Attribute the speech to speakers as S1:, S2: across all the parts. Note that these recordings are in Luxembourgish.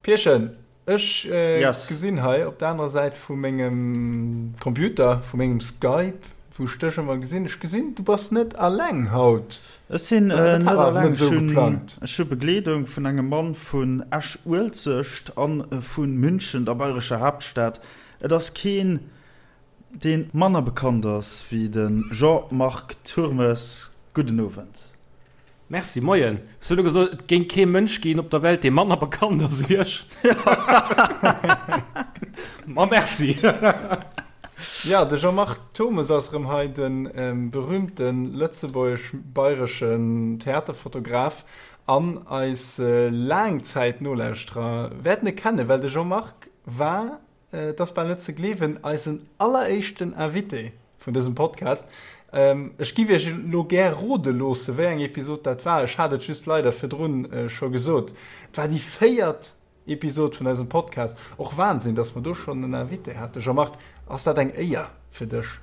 S1: Pierchen, ech gesinn hei op der anerer Säit vu mengem Computer, vu mengem Skype, wou ech dech ëmmer gesinn, ech gesinn, du bass net alleng haut.
S2: Ech sinn net alleng, ech hu Begleedung vun engem Mann vun Esch-Uelzecht a vu München, der bayrescher Haaptstad. Et ass keen, dee manner bekannt ass wéi de Jean-Marc Turmes. Gudden Owend.
S3: Merci, moien. Hues du elo gesot, et géing kee Mënsch ginn op der Welt, dee manner bekannt ass ewéi ech? Ma merci.
S1: Jo, de Jean-Marc Turmes ass erëm hei, de berühmte lëtzebuergesch-bayreschen Theaterfotograf. An eis Laangzäit-Nolauschterer wäerten e kennen, well de Jean-Marc war Et ass bal net ze gleewen, eisen alleréischten Invité vun dësem Podcast. Ech giff iech elo gär rode loosse wéi eng Episod dat war. Ech hat et just leider virdrun scho gesot. Et war déi véiert Episod vun eisem Podcast. Och Wahnsinn, dass mer do schonn en Invité haten. Jean-Marc, ass dat eng Éier fir dech?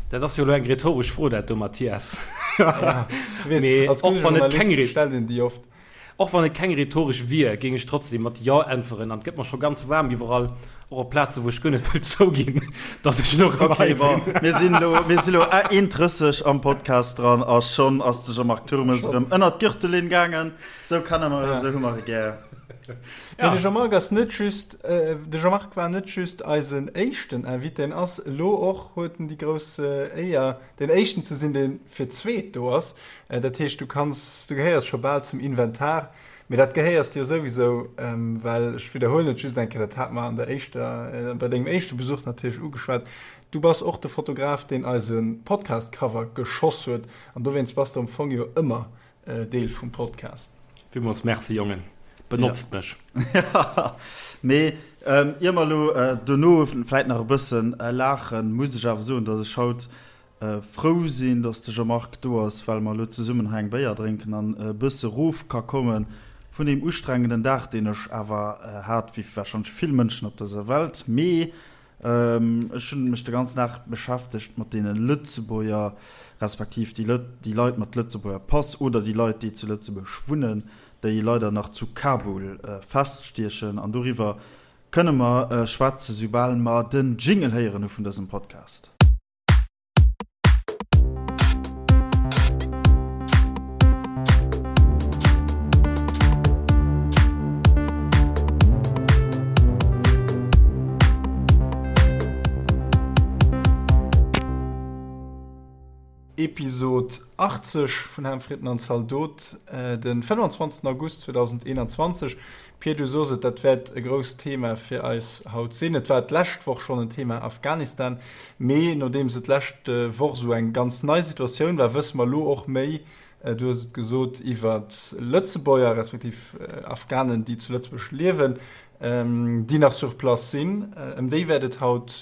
S3: Dat ass jo elo eng rhetoresch Fro, dat do, Mathias. Ja, mee och wann et keng
S1: stellt een déi oft.
S3: Och wann et keng rhetoresch wier, géing ech trotzdem mat Jo äntweren an et gëtt mer scho ganz waarm iwwerall, och op Plazen, wou ech guer net wëll zouginn, dass ech elo erëm hei
S2: sinn. Ok, bon, mir sinn elo, mir sinn elo 1,30 am Podcast dran a schonn ass de Jean-Marc Turmes erëm ënnert d'Gürtellinn gaangen. Sou kenne mer e, sou hu mer e gär.
S1: Mee de Jean-Marc ass net just, de Jean-Marc war net just eisen éischten Invité, en ass elo och, huet en déi grouss Éier, deen éischten ze sinn, dee fir d'zweet do ass. Dat heescht, du kanns, du gehéiers scho bal zum Inventar, mee dat gehéiers de jo souwisou, well, ech widderhuelen et just eng Kéier, dat hate mer an der éischter, bei dengem éischte Besuch natierlech ugeschwat, du bass och de Fotograf, deen eise Podcast-Cover geschoss huet an dowéinst bass du am Fong jo ëmmer Deel vum Podcast.
S3: Villmools Merci Jongen, benotzt mech.
S2: Mee ier mer elo dono vläit nach e bëssen laachen, muss ech awer soen, datt ech haut frou sinn, datt de Jean-Marc do ass, well mer elo zesummen hei eng Béier drénken an e bësse rof ka komme vun deem ustrengenden Dag, deen ech awer hat, wéi warscheinlech vill Mënschen op dëser Welt. Mee Ech hunn mech de ganzen Dag beschäftegt mat deene Lëtzebuerger, respektiv déi déi Leit mat Lëtzebuerger Pass oder déi Leit, déi zu Lëtzebuerg wunnen, déi leider nach zu Kabul feststiechen. An doriwwer kënne mer schwätzen, soubal mer den Jingle héieren hu vun dësem Podcast.
S1: Episod 80 vun Ham Fritten an Zaldot, den 25 August 2021. Pir, du sos et, dat wäert e grousst Thema fir eis haut sinn. Et war d'lescht Woch schonn en Thema, Afghanistan. Mee nodeems et d'lescht Woch esou eng ganz nei Situatioun war, wësse mer elo och méi, du hues et gesot, iwwer Lëtzebuerger respektiv Afghanen, déi zu Lëtzebuerg liewen, déi nach sur place sinn. Ëm déi wäert et haut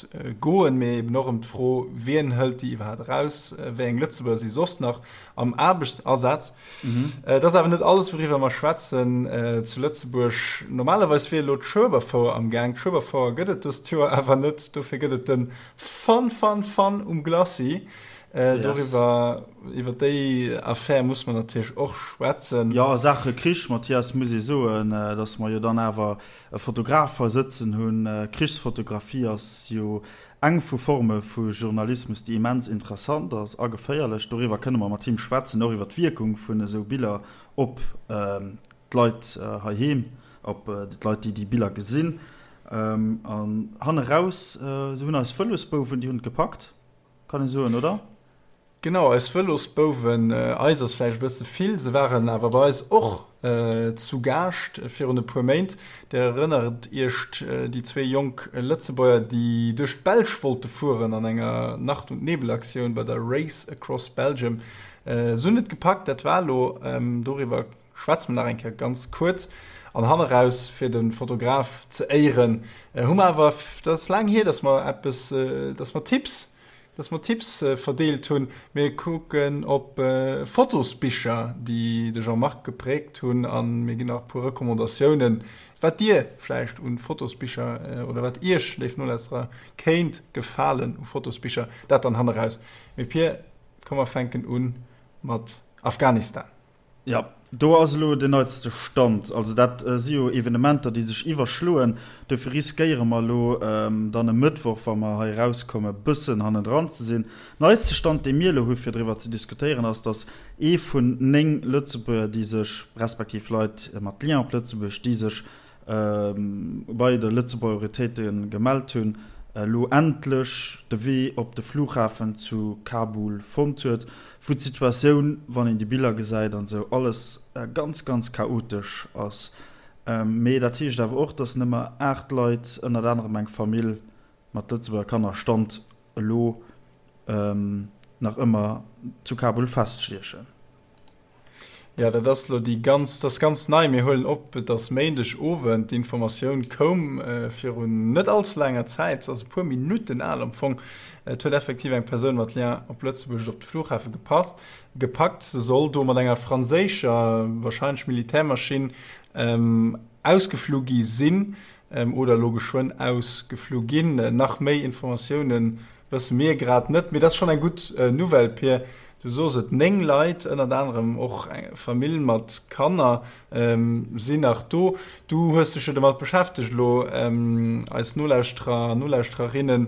S1: goen, mee eben och ëm d'Fro, Wien hëlt déi iwwerhaapt eraus? Wéi eng Lëtzebuerger si soss nach am Aarbechtsasaz? Et ass awer net alles, wouriwwer mer schwätzen zu Lëtzebuerg. Normalerweis wier elo d'Schueberfouer am Gaang. D'Schueberfouer gëtt et dëst Joer awer net. Dofir gëtt et de Fun, Fun, Fun um Glacis. Doriwwer, iwwer déi Affär muss mer natierlech och schwätzen.
S2: Jo, a Saache Krich, Mathias, muss ee soen, datt mer jo dann awer e Fotograf hei sëtzen hunn. Krichsfotografie ass jo Eng vu Forme vu Journalismus, déi immens interessant ass a geféierlech. Doriwwer kënne mer mat him schwätzen, och iwwer d'Wierkung vun esou Biller op d'Leit heiheem, op d'Leit, déi déi Biller gesinn. An hanne raus, esou hunn eis Vëlosbouwen, déi hunn et gepackt, kann ee soen, oder?
S1: Genau, eis Vëlosbouwen, eis ass vläicht e bësse vill, se waren awer bei eis och zu Gaascht virun e puer Méint. Dir erënnert Iech, déi zwee jonk Lëtzebuerger, déi duerch d'Belsch wollte fueren an enger Nacht und Nebel-Aktioun bei der Race Across Belgium. Se hunn et gepackt, dat war elo. Doriwwer schwätze mer nach eng Kéier ganz kuerz. An hanneraus, fir de Fotograf ze éieren, hu mer awer, dat ass laang hier, dass mer eppes, dass mer Tipps Dass mer Tipps verdeelt hunn. Mir kucken op Fotosbicher, déi de Jean-Marc gepräägt hunn a mir ginn nach e puer Recommandatiounen, wat Dir vläicht un Fotosbicher oder wat Iech, léif Nolauschterer, kéint gefalen u Fotosbicher. Dat dann hanneraus. Mee Pir, komm mer fänken u mat Afghanistan.
S2: Jo. Do ass elo den neitste Stand. Also dat si jo Evenementer, déi sech iwwerschloen. Dofir riskéiere mer elo dann e Mëttwoch, wa mer hei erauskommen, e bëssen hannendran ze sinn. Neitste Stand, dee mir elo hu fir driwwer ze diskutéieren, ass, datt ee vun 9 Lëtzebuerger, déi sech, respektiv Leit mat Lien op Lëtzebuerg, déi sech bei de Lëtzebuerger Autoritéite gemellt hunn, elo endlech de Wee op de Flughafen zu Kabul fonnt huet, wou d'Situatioun, wann een déi Biller gesäit an esou, alles ganz, ganz chaotesch ass. Mee dat heescht awer och, datt nëmme 8 Leit, ënnert anerem eng Famill mat Lëtzebuerger Kanner, Stand elo nach ëmmer zu Kabul feststiechen.
S1: Jo, dat ass elo déi ganz, dat ass ganz nei. Mir huelen op, et ass Méindeg Owend. D'Informatioun koum virun net all ze laanger Zäit, se ass e puer Minutten al am Fong. Et huet effektiv eng Persoun mat Lien op Lëtzebuerg et op de Flughafe gepasst, gepackt. Se soll do mat enger franséischer, warscheinlech Militärmaschinn, ausgeflu gi sinn oder elo geschwënn ausgeflu ginn. Nach méi Informatiounen Wësse mir grad net, mee dat ass schonn eng gutt Nouvelle, Pir. Du sos et, 9 Leit, ënnert anerem och eng Famill mat Kanner, sinn nach do. Du hues dech jo domat beschäftegt elo. Eis Nolauschterer an Nolauschtererinne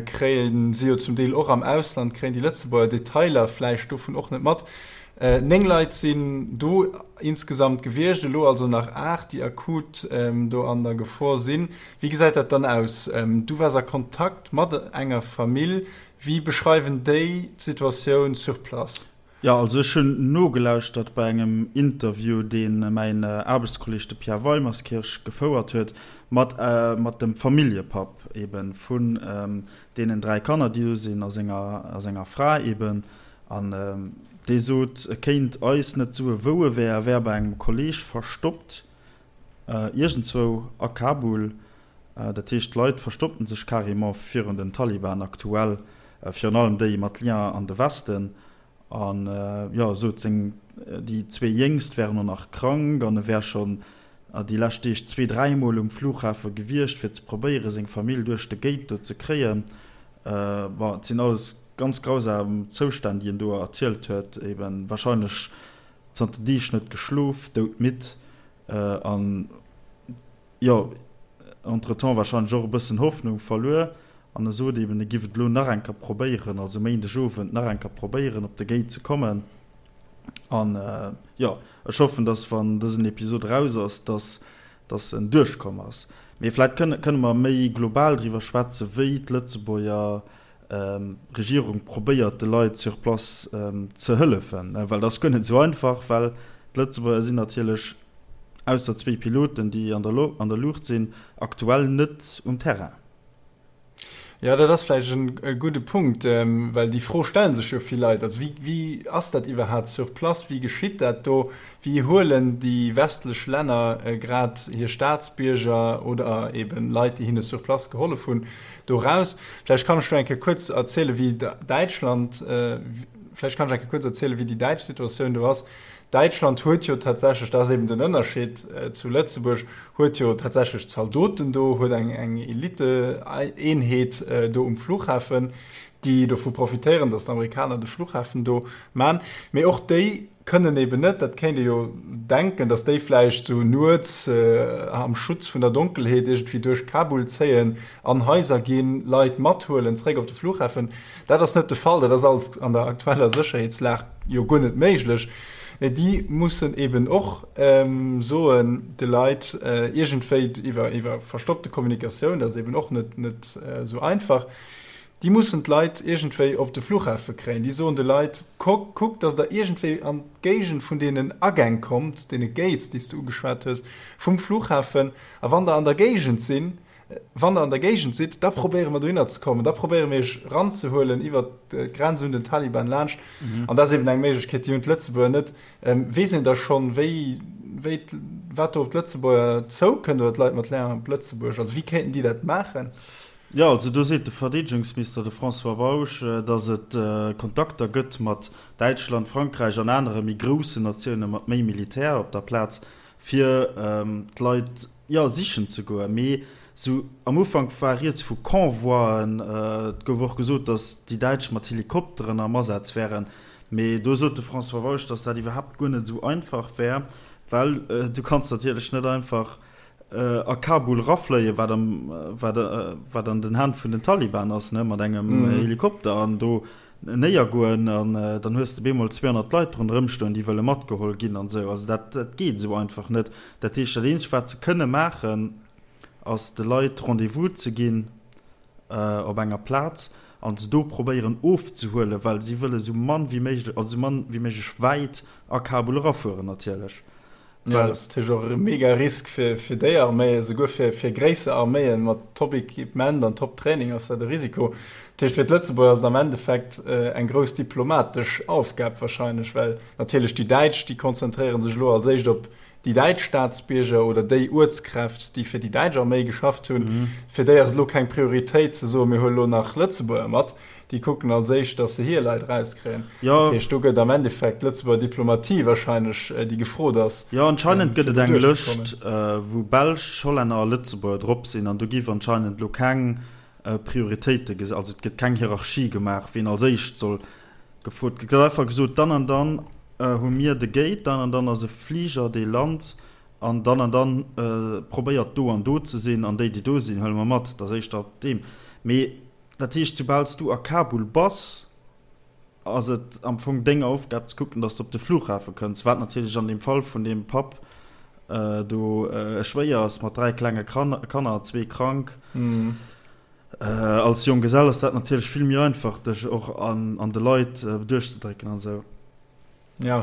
S1: kréien si jo zum Deel och am Ausland, kréien déi Lëtzebuerger Detailer vläicht dovun och net mat. 9 Leit sinn do insgesamt gewiescht, elo also nach 8, déi akut do an der Gefor sinn. Wéi gesäit dat dann aus? Du waars a Kontakt mat enger Famill. Wéi beschreiwen déi d'Situatioun sur place?
S2: Jo, also ech hunn nogelauschtert bei engem Interview, dee mäin Aarbechtskolleeg, de Pierre Weimerskirch, gefouert huet mat mat dem Familljepapp eeben vun deenen 3 Kanner, déi do sinn, a senger a senger Fra eeben. An dee sot, e kéint eis net soe wou e wär, e wär bei engem Kolleeg verstoppt. Iergendzwou a Kabul. Dat heescht, d'Leit verstoppen sech carrément virun den Taliban aktuell, virun allem déi mat Lien an de Westen. An jo, sot seng, déi zwee Jéngst wären och nach krank an e wär schonn déi lescht Deeg zwee, dräimol um Flughafe gewiescht, fir ze probéieren, seng Famill duerch de Gate do ze kréien. Bon, et sinn alles ganz grausam Zoustänn, déi en do erzielt huet, eben warscheinlech zanter Deeg net geschlof, doudmidd an jo entretemps wahrscheinlech och e bëssen Hoffnung verluer. An e sot eben, e giff et elo nach eng Kéier probéieren, also Méindeg Owend nach eng Kéier probéieren op de Gate ze kommen. An jo, ech hoffen, dass wann dësen Episod eraus ass, dass dass en duerchkomm ass. Mee vläit kënne mer méi global driwwer schwätzen, wéi d'Lëtzebuerger Regierung probéiert de Leit sur place ze hëllefen, well dat ass guer net esou einfach, well d'Lëtzebuerger sinn natierlech, ausser zwéi Piloten, déi an der Luucht sinn, aktuell net um Terrain.
S1: Jo, dat ass vläicht e gudde Punkt, well déi Fro stelle sech jo vill Leit. Also wéi ass dat iwwerhaapt sur place, wéi geschitt dat do, wéi huelen déi westlech Länner grad hir Staatsbierger oder eben Leit, déi hinne sur place gehollef hunn, do raus. Vläicht kann ech do eng Kéier kuerz erzielen, wéi Däitschland, vläicht kann ech eng Kéier kuerz erzielen, wéi déi däitsch Situatioun do ass. Däitschland huet jo tatsächlech, dat ass eben den Ënnerscheed zu Lëtzebuerg, huet jo tatsächlech Zaldoten do, huet eng, eng Elite-Eenheet do um Flughafen, déi dovu profitéieren, datt d'Amerikaner de Flughafen do man. Mee och déi kënnen eben net, dat kéint ee jo denken, datt déi vläicht sou nuets am Schutz vun der Donkelheet iergendwéi duerch Kabul zéien, an Haiser ginn, Leit mathuelen zréck op de Flughafen. Dat ass net de Fall, dat ass alles an der aktueller Sécherheetslag jo guer net méiglech. Mee déi mussen eben och soen de Leit iergendwéi iwwer iwwer verstoppte Kommunikatioun, dat ass eben och net net esou einfach, Déi mussen d'Leit iergendwéi op de Flughafe kréien. Déi soen de Leit, Kuckt, datt Der iergendwéi an d'Géigend vun deenen Agäng kommt, deene Gates, déi s de ugeschwat hues, vum Flughafen. A wann Der an der Géigend sinn, wann Der an der Géigend sidd, da probéiere mer dohinner ze kommen, da probéiere mir Iech eranzehuelen iwwert d'Grenz un den Taliban laanscht. An dat ass eben eng Méiglechkeet, déi hunn d'Lëtzebuerger net. Weess een da schonn, wéi, wéi, wat do op d'Lëtzebuerger zoukënnt oder d'Leit mat Lien op Lëtzebuerg? Also wéi kéinten déi dat maachen?
S2: Jo, also do seet de Verdeedegungsminister, de François Bausch, datt et Kontakter gëtt mat Däitschland, Frankräich an anere méi groussen Natioune mat méi Militär op der Plaz, fir d'Leit, jo, sichen ze goen. Mee sou am Ufank war rieds vu Convoien. Et gouf och gesot, datt déi Däitsch mat Helikopteren am Asaz wären. Mee do sot de François Bausch, datt dat iwwerhaapt guer net esou einfach wär, well du kanns natierlech net einfach a Kabul erafléien, wat am, wat, wat an den Hänn vun den Taliban ass, ne, mat engem Helikopter an do néiergoen an dann hues de bemol 200 Leit ronderëm stoen, déi wëlle matgeholl ginn an esou. Also dat, dat geet esou einfach net. Dat heescht, dat eenzegt, wat se kënne maachen, ass de Leit Rendez-vous ze ginn op enger Plaz an se do probéieren ofzehuelen, well si wëlle sou mann wéi méiglech, also sou mann wéi méiglech wäit a Kabul erafueren natierlech.
S1: Jo, dat ass natierlech och e mega Risk fir fir déi Arméien, esouguer fir fir gréisser Arméien mat Top-Equipement an Top-Training ass dat e Risiko. Dat heescht, fir d'Lëtzebuerger ass et am Endeffekt eng grouss diplomatesch Aufgab wahrscheinlech, well natierlech déi Däitsch, déi konzentréiere sech elo als éischt op déi däitsch Staatsbierger oder déi Uertskräft, déi fir déi däitsch Arméi geschafft hunn, fir déi ass et elo keng Prioritéit ze soen, mir huele elo nach Lëtzebuerger mat. Déi kucken als éischt, datt se hir Leit erauskréien. Dat heescht, do gëtt am Endeffekt d'Lëtzebuerger Diplomatie wahrscheinlech déi gefrot ass,
S2: Jo, anscheinend gëtt et eng Lëscht, wou Belsch, Hollänner a Lëtzebuerger drop sinn an do giff anscheinend elo keng Prioritéite, also et gëtt keng Hierarchie gemaach, wien als éischt soll Gefrot gëtt einfach gesot, dann an dann hu mir de Gate, dann an dann ass e Fliger dee lant an dann an dann probéiert do an do ze sinn an déi déi do sinn huele mer mat. Dat ass éischter op deem. Mee dat heescht, soubal s du a Kabul bass, ass et am Fong deng Aufgab ze kucken, datt s de op de Flughafe kënns, wat natierlech an deem Fall vun deem Papp do schwéier ass mat 3 klenge Kanner, zwee krank. Als Jonggesell ass dat natierlech vill méi einfach, dech och an de Leit duerchzedrécken an esou.
S1: Jo,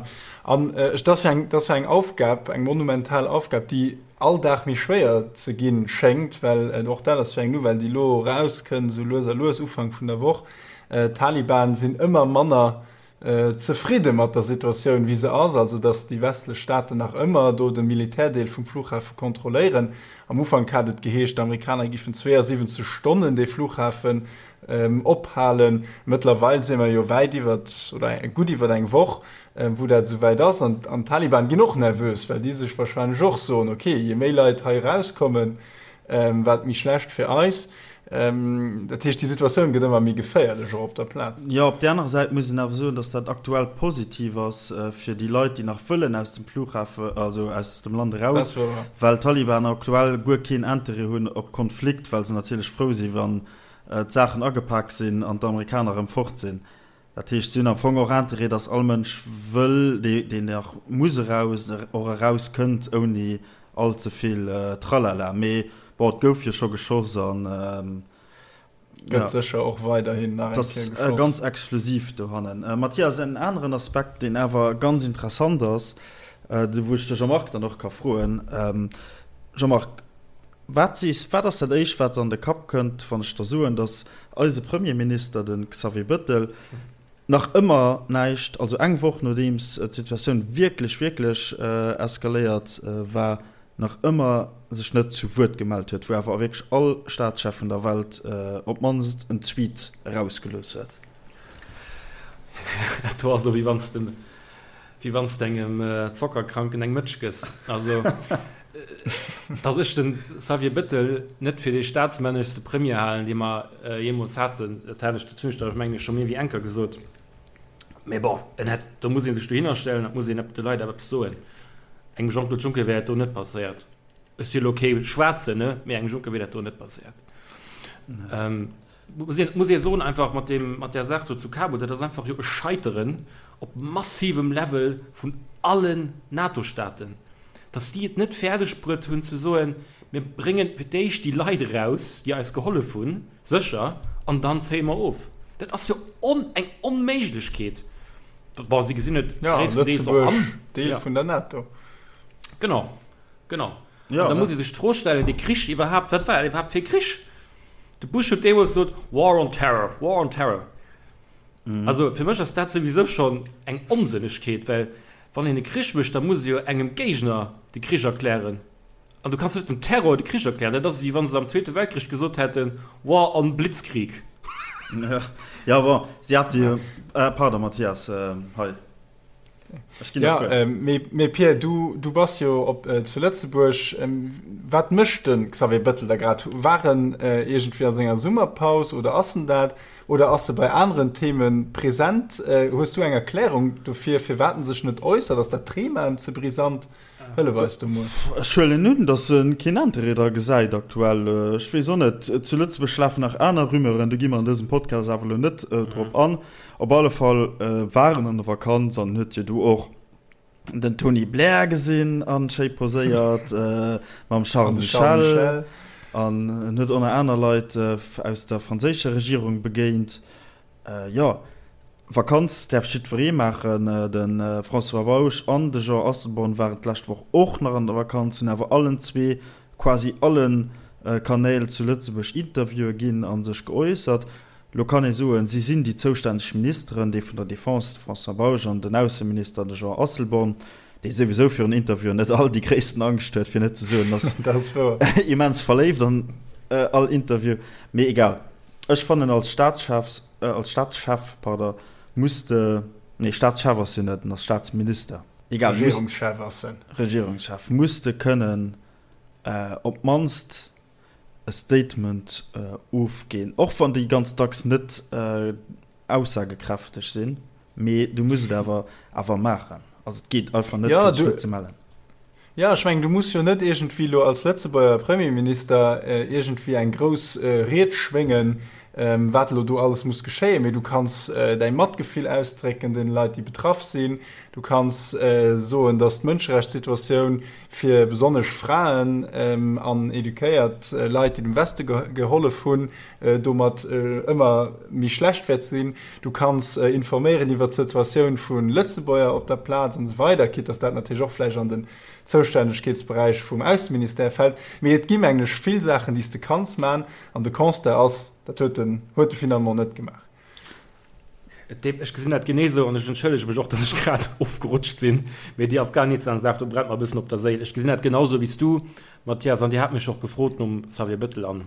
S1: an ech, dat ass jo eng, dat ass jo eng Aufgab, eng monumental Aufgab, déi all Dag méi schwéier ze ginn schéngt, well och dat ass jo eng Nouvelle, déi elo erauskënnt, esou lues a lues, Ufank vun der Woch, d'Taliban sinn ëmmer manner zefridde mat der Situatioun wéi se ass, also datt déi westlech Staaten nach ëmmer do de Militärdeel vum Flughafe kontrolléieren. Am Ufank hat et geheescht, d'Amerikaner giffen 72 Stonnen dee Flughafen ophalen. Mëttlerweil si mer jo wäit iwwert oder gutt iwwert eng Woch, wou dat esou wäit ass. An d'Taliban ginn och nervös, well déi sech warscheinlech och soen, ok, je méi Leit hei erauskommen, Wat méi schlecht fir eis. Dat heescht, déi Situatioun gëtt ëmmer méi geféierlech, och op der Plaz.
S2: Jo, op där anerer Säit muss een awer soen, datt dat aktuell positiv ass fir déi Leit, déi nach wëllen aus dem Flughafen, also aus dem Land eraus, well d'Taliban aktuell guer keen Interêt hunn op Konflikt, well se natierlech frou sinn, wann d'Saachen agepak sinn an d'Amerikaner erëm fort sinn. Dat heescht, si hunn am Fong och Interêt, datt all Mënsch wëll, deen nach muss eraus, och eraus kënnt ouni all ze vill Tralala. Mee bon, et gouf jo scho geschoss an
S1: gëtt sécher och weiderhin
S2: nach eng Kéier geschoss. Ass ganz explosiv dohannen. Mathias, en aneren Aspekt, deen awer ganz interessant ass, wou ech de Jean-Marc dann och ka froen. Jean-Marc, Wat sees, wat ass dat éischt wat der an de Kapp kënnt, wann ech der soen, datt eise Premierminister, de Xavier Bëttel, nach ëmmer näischt, also eng Woch nodeems d'Situatioun wierklech, wierklech eskaléiert war, nach ëmmer sech net zu Wuert gemellt huet, wou awer wierklech all Staatschef vun der Welt op d'mannst en Tweet erausgelooss huet?
S3: Dat do ass elo wéi wann s de Wéi wann s de engem Zockerkranken eng Mëtsch gëss. Also, datt ech de Xavier Bettel net fir dee staatsmänneschste Premier halen, dee mer jeemools haten, dat hat ech, dat hunn ech der, mengen ech, scho méi wéi eng Kéier gesot. Mee bon, en hätt, do muss ee sech dohinner stellen, dat muss een de Leit awer eppes soen. Engem Jean-Claude Juncker wär dat do net passéiert. Ech si elo kee Schwaarzen, ne, mee engem Juncker wier dat do net passéiert. Muss een, muss ee soen, einfach mat deem, mat där Saach do zu Kabul, dat ass einfach jo e Scheiteren op massivem Level vun allen NATO-Staaten, dass déi et net fäerdeg bruet hunn ze soen, mir bréngen fir d'éischt déi Leit eraus, déi eis gehollef hunn, sécher, an dann zéie mer of. Dat ass jo on, eng Onméiglechkeet. Bon, si gesinn et
S1: Ja, gréisstendeels och an. Lëtzebuerg, Deel Ja. vun der NATO.
S3: Genau, genau. Ja, An da muss ee sech d'Fro stellen, dee Krich iwwerhaapt, wat war dat iwwerhaapt fir e Krich? De Bush huet deemools gesot, War on Terror, War on Terror. Also fir mech ass dat souwisou schonn eng Onsënnegkeet, well wann een e Krich mécht, da muss ee jo engem Géigner de Krich erklären. An du kanns net dem Terror de Krich erklären. Dat ass ewéi wa se am Zweete Weltkrich gesot hätten, War on Blitzkrieg.
S2: Ja, bon, si hate jo, pardon Mathias, hei. Ech ginn
S1: Ja, äh, mee, mee Pierre, du, du bass jo op, äh, zu Lëtzebuerg. Ähm, wat mécht de Xavier Bëttel da grad? War en äh, iergendwéi a senger Summerpaus oder ass en dat? Oder ass e bei aneren Theme present? Äh, hues du eng Erklärung dofir, firwat en sech net äussert? Ass dat Thema em ze brisant? Hëllef eis do mol.
S2: Ech huelen un, datt e keen Interêt dra gesäit aktuell. Ech weess och net. Zu Lëtzebuerg lafen nach aner Rumeuren, do gi mer an dësem Podcast awer elo net drop an. Op alle Fall war en an der Vakanz an huet jo do och den Tony Blair gesinn an schéi poséiert mam Charles Michel an en huet och nach aner Leit aus der franséischer Regierung begéint. Jo, Vakanz däerf jiddweree maachen. De François Bausch an de Jean Asselborn waren d'lescht Woch och nach an der Vakanz, hunn awer allen zwee quasi alle Kanäl zu Lëtzebuerg Interviewe ginn a sech geäussert. Lo kann ee soen, si sinn déi zoustänneg Ministeren, dee vun der Defense, de François Bausch, an den Ausseminister, de Jean Asselborn, dee souwisou virun Interviewen net all déi gréissten Angscht huet, fir net ze soen, ass immens verléift an all Interview. Mee egal, ech fannen als Staatschefs, als Staatschef, pardon, muss de, nee Staatschef ass jo net, en ass Staatsminister, egal, muss,
S1: Regierungschef ass en.
S2: Regierungschef, muss de kënnen op d'mannst e Statement ofginn, och wann déi ganz dacks net aussagekräfteg sinn, mee du muss et awer awer maachen. Also et geet einfach net, fir sech net ze mellen.
S1: Jo, ech mengen, du muss jo net iergendwéi elo als Lëtzebuerger Premierminister iergendwéi eng grouss Ried schwéngen, wat elo do alles muss geschéien, mee du kanns däi Matgefill ausdrécken deene Leit, déi betraff sinn. Du kanns soen, datt d'Mënscherechtssituatioun fir besonnesch Fraen an eduquéiert Leit, déi dem Weste gehollef hunn, domat ëmmer méi schlecht wäert sinn. Du kanns informéieren iwwer d'Situatioun vu Lëtzebuerger op der Plaz an esou weider, quitte dass dat natierlech och vläicht an den Zoustännegkeetsberäich vum Ausseministère fält. Mee et gi mengen ech vill Saachen, déi s de kanns man, an de Constat ass, dat huet en huet e finalement net gemaach.
S3: Ech gesinn dat genee esou an ech entschëllege mech och, datt ech grad ofgerutscht sinn, mee déi Afghanistan-Saach, do brennt mer e bëssen op der Séil. Ech gesinn dat genau esou wéi s du, Mathias, an Dir hat mech och gefrot nom Xavier Bettel an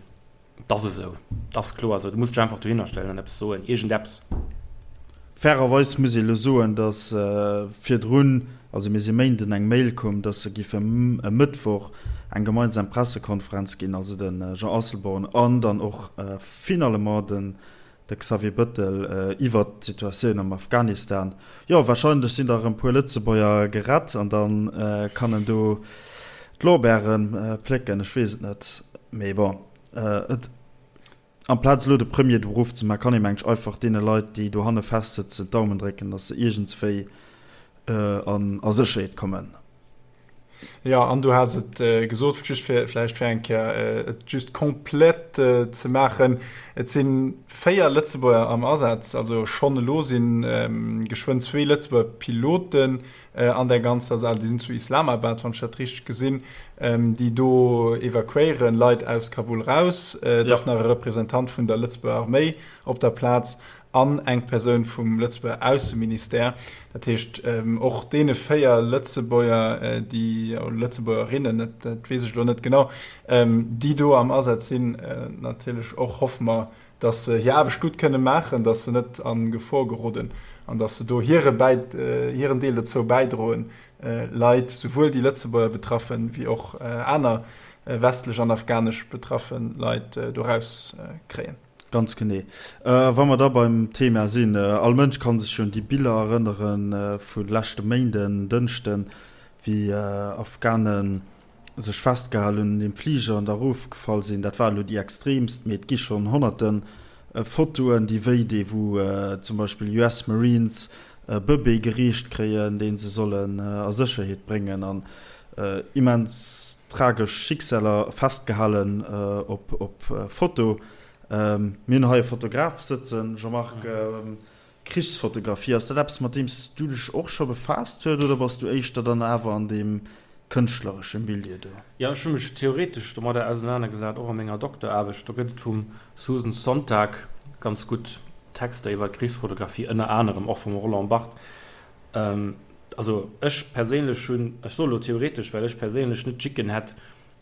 S3: et ass esou, et ass kloer esou, du muss dech einfach dohinner stellen an eppes soen, iergendeppes.
S2: Fairerweis muss ee elo soen, datt virdrun, also mir si Méinden, eng Mail koum, datt se giffe e Mëttwoch eng gemeinsam Pressekonferenz ginn, also de Jean Asselborn an dann och finalement den De Xavier Bëttel iwwert d'Situatioun am Afghanistan. Jo, warscheinlech sinn der erëm puer Lëtzebuerger gerett an da kann en do d'Lorbeere plécken. Ech weess et net. Mee bon, et amplaz elo de Premier do erofzemaachen, kann ee mengen ech einfach deene Leit, déi dohanne festsëtzen, d'Daumen drécken, datt se iergendswéi a Sécherheet kommen.
S1: Jo, an du has et gesot, just fir vläicht fir eng Kéier et just komplett ze maachen, Et si 4 Lëtzebuerger am Asaz, also schonn elo si geschwënn zwee Lëtzebuerger Piloten an där ganzer Saach, déi sinn zu Islamabad, wann ech dat richteg gesinn, déi do evakuéieren, Leit aus Kabul raus. Et ass nach e Representant vun der Lëtzebuerger Arméi op der Plaz an eng Persoun vum Lëtzebuerger Ausseministère. Dat heescht, och deene 4 Lëtzebuerger, déi, oder Lëtzebuergerinnen, dat, dat weess ech elo net genau, déi do am Asaz sinn, natierlech och hoffe mer, datt se hir Aarbecht gutt kënne maachen, datt se net a Gefor geroden an datt se do hire Bäi, hiren Deel dozou bäidroen, Leit, souwuel déi Lëtzebuerger betraffen, wéi och aner westlech an afghanesch betraffe Leit do rauskréien.
S2: Ganz genee. Wa mer da beim Thema sinn, all Mënsch ka sech jo un déi Biller erënnere vu leschte Méinden, Dënschden, wéi Afghane sech festgehal hunn un deem Fliger an da erofgefall sinn. Dat war elo déi extreemst, mee et gi schonn honnerte Fotoen, déi wéi dee wou zum Beispill US Marines e Bëbee gereecht kréien, dee se sollen a Sécherheet bréngen an immens tragesch Schicksaler festgehalen op Foto. Mir hunn hei e Fotograf sëtzen, Jean-Marc. Krichsfotografie, ass dat eppes mat deem s du dech och scho befaasst huet oder bass du éischter dann awer an deem kënschtleresche Milieu do?
S3: Jo, ech hu mech theoretesch domadder ausenanergesat, och a menger Dokteraarbecht. Do gëtt et vum Susan Sontag ganz gutt Texter iwwer Krichsfotografie, ënner anerem och vum Roland Barthes. Also ech perséinlech hunn, ech soe lo theoretesch, well ech perséinlech net d'Jicken hätt,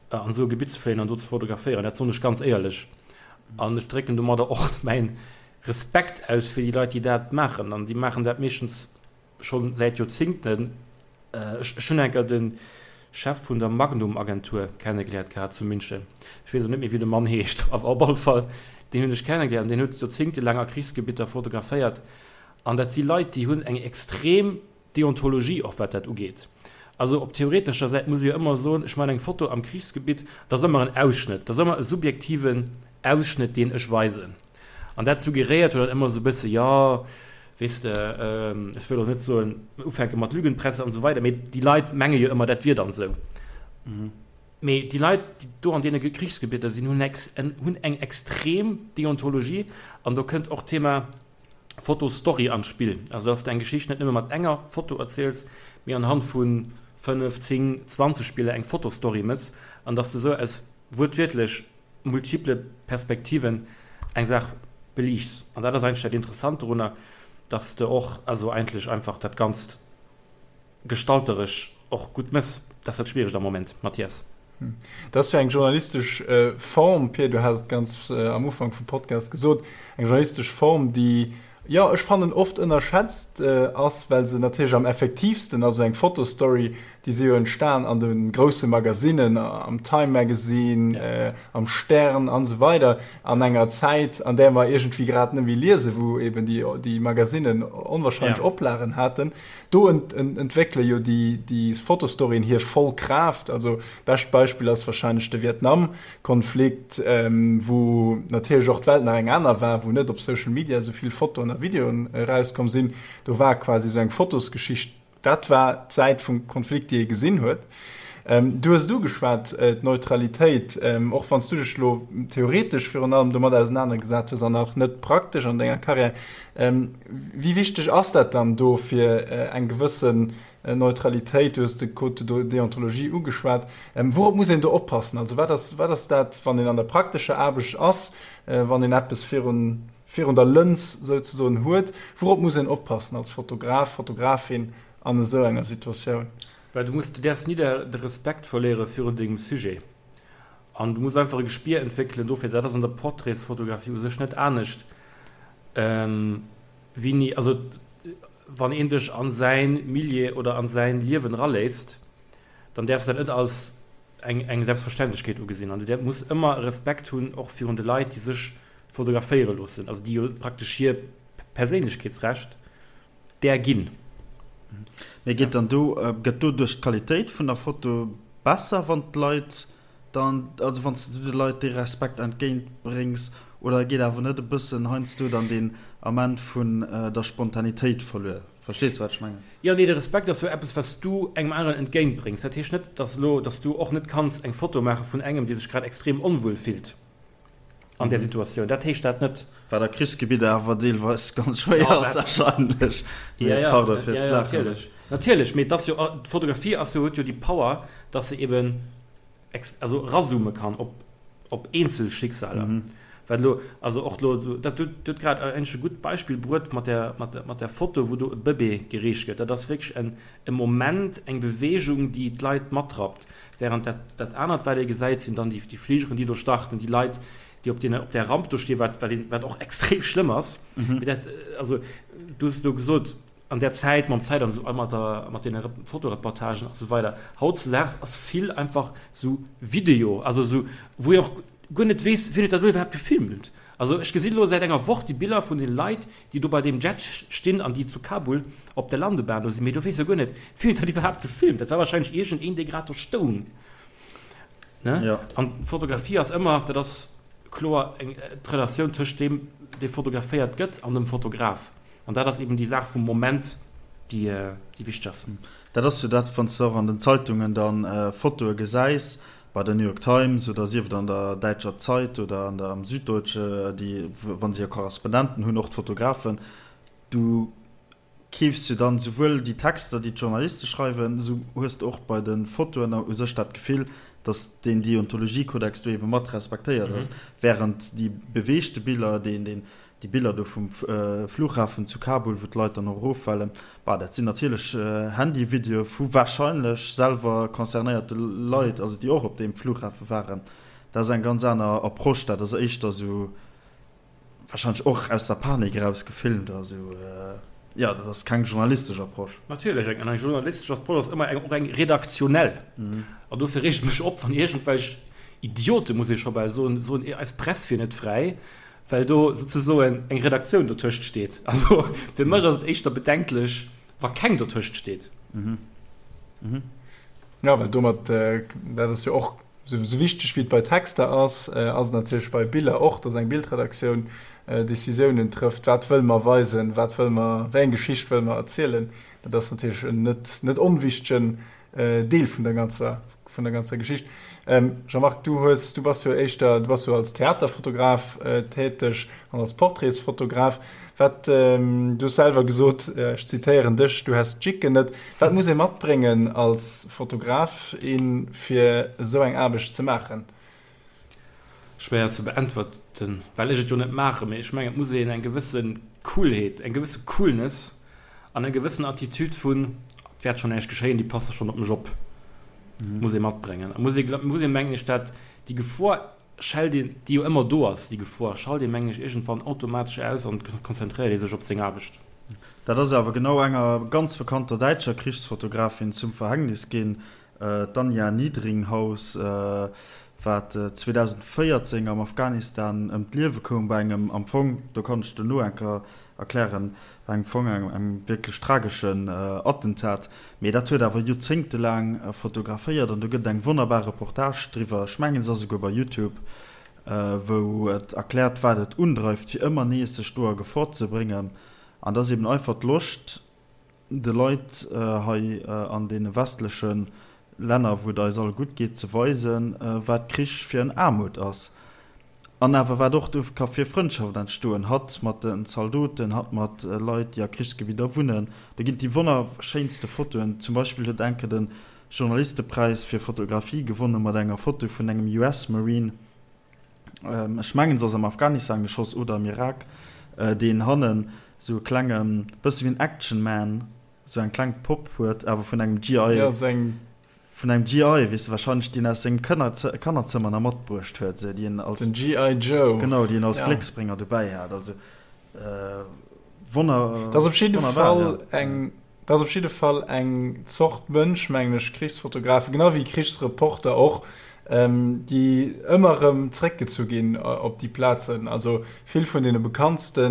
S3: an esou e Gebitt ze fléien an do ze fotograféieren, dat soen ech ganz éierlech. An ech drécken domadder och mäin Respekt aus fir déi Leit, déi dat maachen. An déi maachen dat meeschtens. scho säit Joerzingten, ech hunn enker de Chef vun der Magnum-Agentur kennegeléiert gehat zu München. Ech weess elo net méi, wéi de Mann heescht, awer op alle Fall, deen hunn ech kennegeléiert an deen huet joerzingtelaang a Krichsgebitter fotograféiert. An dat si Leit, déi hunn eng extrem Deontologie och, wat dat ugeet. Also op theoretescher Säit muss ee jo ëmmer soen, ech maachen eng Foto am Krichsgebitt, dat ass ëmmer en Ausschnëtt, dat ass ëmmer e subjektiven Ausschnëtt, deen ech weisen. An dat suggeréiert jo dann ëmmer esou e bësse, jo, weess de, ech wëll och net soen, ufänke mat Lügenpresse an esou weider, mee déi Leit menge jo ëmmer, dat wier dann esou. Mee déi Leit, déi do an deene Krichsgebitter sinn, hunn eng extrem Deontologie an do kënnt och d'Thema Fotostory an d'Spill. Also dass de eng Geschicht net nëmme mat enger Foto erziels, mee anhand vu 5, 10, 20 Biller eng Fotostory mëss an dass de esou aus wuertwiertlech multiple Perspektiven eng Saach beliichts. An dat ass eigentlech dat Interessant dorunner, dass de och also eigentlech einfach dat Ganzt gestalteresch och gutt mëss. Dat ass dat Schwieregt am Moment, Mathias.
S1: Dat ass jo eng journalistesch Form, Pir, du has et ganz am Ufank vum Podcast gesot, eng journalistesch Form, déi, jo, ech fannen, oft ënnerschätzt ass, well se natierlech am effektiivsten ass. Esou eng Fotostory, déi si jo entstan an de grousse Magasinnen, am Time Magazine, am Stern an esou weider, an enger Zäit, an där mer iergendwéi grad net méi liesen, wou eben déi Magasinnen onwahrscheinlech Oplagen haten. Do entwéckele jo déi Fotostoryen hir voll Kraaft. Also bescht Beispill ass wahrscheinlech de Vietnam-Konflikt, wou natierlech och d'Welt nach eng aner war, wou net op Social Media esou vill Fotoen a Videoen erauskomm sinn. Do war quasi esou eng Fotosgeschicht, dat war d'Säit vum Konflikt, déi ee gesinn huet. Du hues et ugeschwat, d'Neutralitéit, och wann s du dech elo theoretesch virun allem domat ausenanergesat hues an nach net praktesch an denger Karriär. Wéi wichteg ass dat dann do fir eng gewëssen Neutralitéit? Du hues de Code de déontologie ugeschwat. Wourop muss een do oppassen? Also wat ass, wat ass dat, wann een an der praktescher Aarbecht ass, wann een eppes virun, virun der Lëns souzesoen huet, wourop muss een oppassen als Fotograf, Fotografin an esou enger Situatioun?
S3: Well du muss, du däerfs ni de Respekt verléiere virun dengem Sujet an du muss einfach e Gespier entwéckelen dofir, dat ass an der Portraitsfotografie u sech net anescht, wéini, also wann een dech a säin Milieu oder a säin Liewen eraléisst, dann däerfs du dat net als eng eng Selbstverständlechkeet ugesinn an du muss ëmmer e Respekt hunn och virun de Leit, déi sech fotograféiere loossen, also déi jo praktesch hir Perséinlechkeetsrecht där ginn.
S2: Mee geet dann do, gëtt doduerch d'Qualitéit vun der Foto besser, wann d'Leit dann, also wann s du de Leit dee Respekt entgéint bréngs, oder geet awer net e bëssen heiansdo dann deen Ament vun der Spontanitéit verluer? Verstees du wat ech mengen?
S3: Jo, nee, de Respekt ass jo eppes wat s du engem aneren entgéint bréngs. Dat heescht net, dass elo, dass du och net kanns eng Foto maache vun engem, dee sech grad extrem onwuel fillt. an där Situatioun. Dat heescht dat net.
S2: Wat a Krichsgebidder awer deelweis ganz schwéier ass wahrscheinlech.
S3: Ja, ja, Pardon fir ja, ja, natierlech. Natierlech, mee dass jo d'Fotografie ass jo, huet jo déi Power, dass se eben ex, also erazoome kann op, op eenzel Schicksaler. Mhm. Wat elo, also och elo, dat du huet grad eigentlech e gutt Beispill bruet mat der, mat der, mat der Foto, wou do e Bëbee gereecht gëtt. Dat ass wierklech en, e Moment, eng Beweegung, déi d'Leit matrappt. Während dat, dat anert, wat ee gesäit, sinn dann déi, déi Fligeren, déi do starten, déi Leit, déi op deene, op där Ramp do stinn, wat, wat een, wat och extrem schlëmm ass. Mhm. Mee dat, also, du hues et elo gesot, an där Zäit, mam Zäit an esou, mat der, mat deene Fotoreportagen a sou weider, hautzedaags ass vill einfach sou Video, also sou, wou ee och guer net weess, wien huet dat elo iwwerhaapt gefilmt. Also ech gesinn elo säit enger Woch déi Biller vun den Leit, déi do bei deem Jet stinn an déi zu Kabul op der Landebahn do sinn, mee do weess jo guer net, wien huet dat iwwerhaapt gefilmt. Dat war wahrscheinlech iergend een, dee grad do stoung. Ne?
S2: Ja.
S3: An d'Fotografie ass ëmmer, dat ass kloer, eng d'Relatioun tëscht deem, dee fotograféiert gëtt, an dem Fotograf. An dat ass eben déi Saach vum Moment, déi, déi wichteg ass.
S2: Dat ass jo dat, wann s de och an den Zeitungen dann Fotoe gesäis, bei der New York Times oder sief et an der däitscher Zeit oder an der am Süddeutsche, déi, wa se hir Korrespondenten hunn, och d'Fotografen, du keefs jo dann souwuel déi Texter, déi d'Journaliste schreiwen, esou hues de och bei de Fotoen u sech dat Gefill, datt deen Deontologiekodex do ebe mat respektéiert ass, während déi beweegte Biller, deen, deen Déi Biller do vum Flughafen zu Kabul, wou d'Leit dann och eroffalen, bah, dat sinn natierlech Handyvideoe vu warscheinlech selwer concernéierte Leit, also déi och op deem Flughafe waren. Dat ass eng ganz aner Approche, dat ass éischter esou warscheinlech och aus der Panik eraus gefilmt a sou. Jo, dat ass keng journalistesch Approche.
S3: Natierlech, eng eng journalistesch Approche ass ëmmer eng och eng redaktionell. An dofir reegt et mech op, wann iergendwelch Idioten, muss ee scho bal soen, soen, eis Press wier net fräi, well do souzesoen eng Redaktioun dotëscht steet. Also fir mech ass et éischter bedenklech, wa keng dotëscht steet.
S1: Jo, well domat, dat ass jo och Esou wichteg wéi et bei Texter ass, ass et natierlech bei Biller och, dass eng Bildredaktioun Decisiounen trëfft, wat wëlle mer weisen, wat wëlle mer, wéi eng Geschicht wëlle mer erzielen. Dat ass natierlech en net, net onwichtegen Deel vun der ganzer, vun der ganzer Geschicht. Jean-Marc, du hues, du bass jo éischter, du bass jo als Theaterfotograf täteg an als Portraitsfotograf. Wat, du hues selwer gesot, ech zitéieren dech, du häss d'Jicken net. Wat muss ee matbréngen als Fotograf, in, fir esou eng Aarbecht ze maachen?
S3: Schwéier ze beäntwerten, well ech et jo net maachen. Mee ech mengen, et muss een eng gewësse Coolheet, eng gewësse Coolness an eng gewëssen Attitude vun, et wäert schonn näischt geschéien, déi passe schonn op mech op, muss ee matbréngen. A muss ee, muss ee mengen ech, dat déi Gefor schält een, déi jo ëmmer do ass, déi Gefor, schalt ee mengen ech iergendwann automatesch aus an konzentréiert ee sech op seng Aarbecht.
S2: Dat ass awer genau enger ganz bekannter däitscher Krichsfotografin zum Verhängnis ginn, d'Anja Niedringhaus, wat 2014 am Afghanistan ëm d'Liewe koum bei engem, am Fong, do kann ech duerno eng Kéier erklären, bei engem Fong engem wierklech trageschen Attentat. Mee dat huet awer joerzéngtelaang fotograféiert an do gëtt et eng wonnerbar Reportage driwwer, ech mengen se ass esouguer bei Youtube, wou et erkläert wat et undreift fir ëmmer nees sech do a Gefor ze bréngen. An dat ass eben einfach d'Loscht de Leit hei an deene westleche Länner, wou et eis all gutt geet, ze weisen, wat Krich fir en Aarmut ass. An awer wat och do ka fir Frëndschaft entstoen, hatt mat den Zaldoten, hatt mat Leit, déi a Krichsgebidder wunnen. Do ginn et déi wonnerschéinste Fotoen. Zum Beispill huet enke de Journalistepräis fir Fotografie gewonne mat enger Foto vun engem US-Marine, ech mengen se ass am Afghanistan geschoss oder am Irak, deen hannen esou e klenge, bësse wéi en Action Man, esou eng kleng Popp huet, awer vun engem GI.
S1: Jo, esou eng
S2: Vun engem GI, weess de, wahrscheinlech deen aus sengem Kannerzëmmer nach matbruecht huet, esou, déi en als.
S1: Den GI Joe.
S2: Genau, déi en als Glécksbrénger dobäi hat. Also, wonner,
S1: Dat ass op jidde Fall eng, dat ass op jidde Fall eng Zort Mënsch, mengen ech, Krichsfotografen, genau wéi Krichsreporter och, déi ëmmer erëm zréckgezu ginn op déi Plazen. Also vill vun deene bekanntste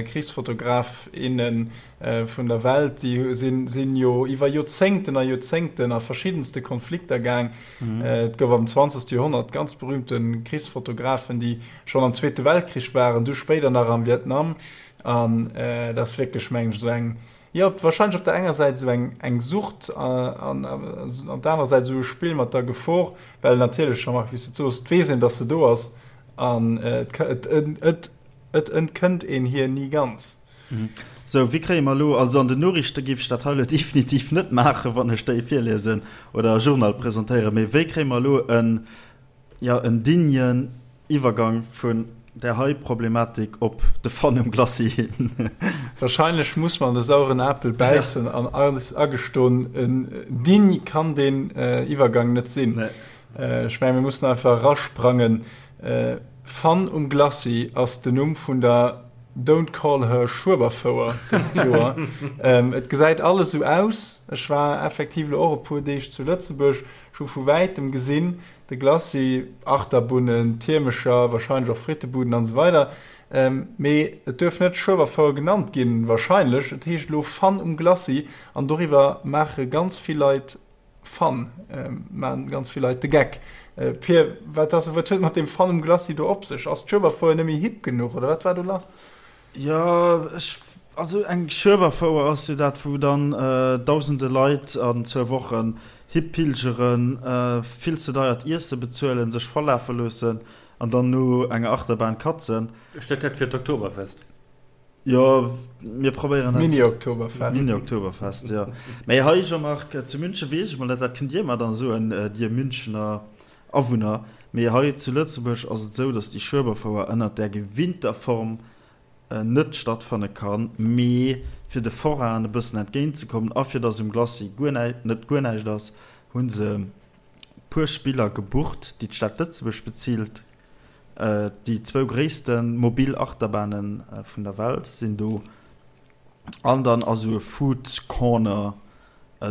S1: Krichsfotograf, innen vun der Welt, déi sinn jo iwwer Joerzéngten a Joerzéngten a verschiddenste Konflikter gaang. Et gouf am 20. Joerhonnert ganz berühmte Krichsfotografen, déi schonn am Zweete Weltkrich waren, du spéider nach am Vietnam. An dat ass wierklech, mengen ech, esou eng, jo, wahrscheinlech op der enger Säit esou eng, eng Sucht an op der anerer Säit esou e Spill mat der Gefor, well natierlech, Jean-Marc, wéi s du et soos, et weess een, datt se do ass an et, et entkënnt een hir ni ganz.
S2: Sou, wéi kréie mer elo, also an den Noriichte géif ech dat hei elo definitiv net maachen, wann ech déi virliesen oder e Journal presentéieren, mee wéi kréie mer elo en, jo, en dignen Iwwergang vun där hei Problematik op de Fun um Glacis hin?
S1: Wahrscheinlech muss mer an de sauren Apel bäissen an eis agestoen, en digne kann deen Iwwergang net sinn. Ech mengen, mir mussen einfach erasprangen. Fun um Glacis ass den Numm vun der Don't Call Her Schueberfouer dëst Joer. Et gesäit alles esou aus. Ech war effektiv elo och e puer Deeg zu Lëtzebuerg. Ech hu vu wäitem gesinn, de Glacis, Achterbunnen, Tiermecher, wahrscheinlech och Frittebuden an esou weider. Mee et duerf net Schueberfouer genannt ginn, wahrscheinlech. Et heescht elo Fun um Glacis an doriwwer maache ganz vill Leit Fun, maan ganz vill Leit de Geck. Pir, wat ass, wat huet mat deem Fun um Glacis do op sech? Ass d'Schueberfouer net méi hip genuch oder wat war do lass?
S2: Jo, ech, also eng Schueberfouer ass jo dat wou dann dausende Leit an zwou Wochen hipilgeren, vill ze deiert Iesse bezuelen, sech vollafe loossen an dann no enger Achterbahn katzen.
S3: Steet dat fir d'Oktoberfest?
S2: Jo, mir probéieren
S1: dat. Mini-Oktoberfest.
S2: Mini-Oktoberfest, jo. Mee hei, Jean-Marc, zu München weess ech mol net, dat kënnt Dir mer dann soen, Dir Münchener Awunner, mee hei zu Lëtzebuerg ass et esou, datt déi Schueberfouer ënnert där gewinnter Form net stattfanne kann, mee fir de Forainen e bëssen entgéintzekommen a fir datt um Glacis guer näi, net guer näischt ass, hu se puer Spiller gebucht, déi d'Stad Lëtzebuerg bezilt. Déi zwou gréisste mobil Achterbahne vun der Welt sinn do. An dann ass esou e Food Corner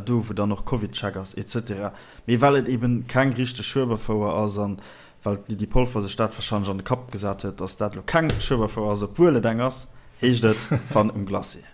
S2: do, wou dann och Covid-Check ass et cetera. Mee well et eben keng richteg Schueberfouer ass an well d'Lydie Polfer sech dat warscheinlech an de Kapp gesat huet, dass dat elo keng Schueberfouer ass, obwuel et eng ass, heescht et Fun um Glacis.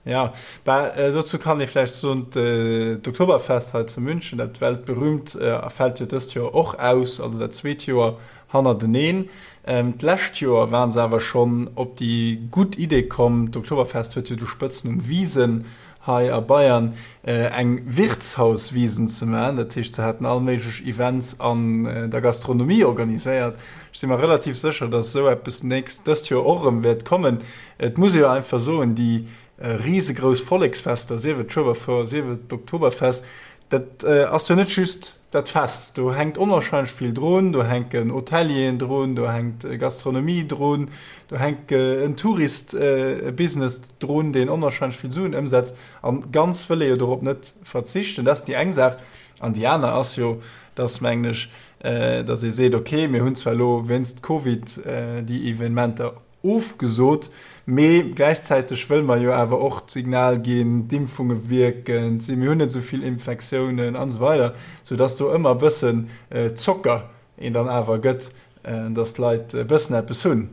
S1: Jo, bah, dozou kann ee vläicht soen, d'Oktoberfest hei zu München, dat weltberühmt, fält jo dëst Joer och aus, also dat zweet Joer hannerteneen. D'lescht Joer waren se awer schonn op déi gutt Idee komm, d'Oktoberfest huet jo de Spëtznumm Wiesn hei a Bayern, eng Wirtshauswiesn ze maachen. Dat heescht, se haten all méiglech Events an der Gastronomie organiséiert. Ech si mer relativ sécher, datt esou eppes nächst, dëst Joer och erëm wäert kommen. Et muss ee jo einfach soen, déi risegrouss Volleksfester, sief et d'Schueberfouer, sief et d'Oktoberfest, Dat ass jo net just dat Fest, do hänkt onwahrscheinlech vill drun, do hänken Hotelieren drun, do hänkt Gastronomie drun, do hänkt en Touristbusiness drun, deen onwahrscheinlech vill Suen ëmsetzt. A ganz wëll ee jo dorop net verzichten. Dat ass déi eng Saach. An déi aner ass jo, dass, mengen ech, dass ee seet, okay, mir hunn zwar elo wéinst Covid déi Evenementer Ofgesot, mee gläichzäiteg wëlle mer jo awer och d'Signal ginn, d'Impfunge wierken, mir hunn net esou vill Infektiounen an esou weider, soudass do ëmmer e bëssen Zocker een dann awer gëtt, dass d'Leit e bëssen eppes hunn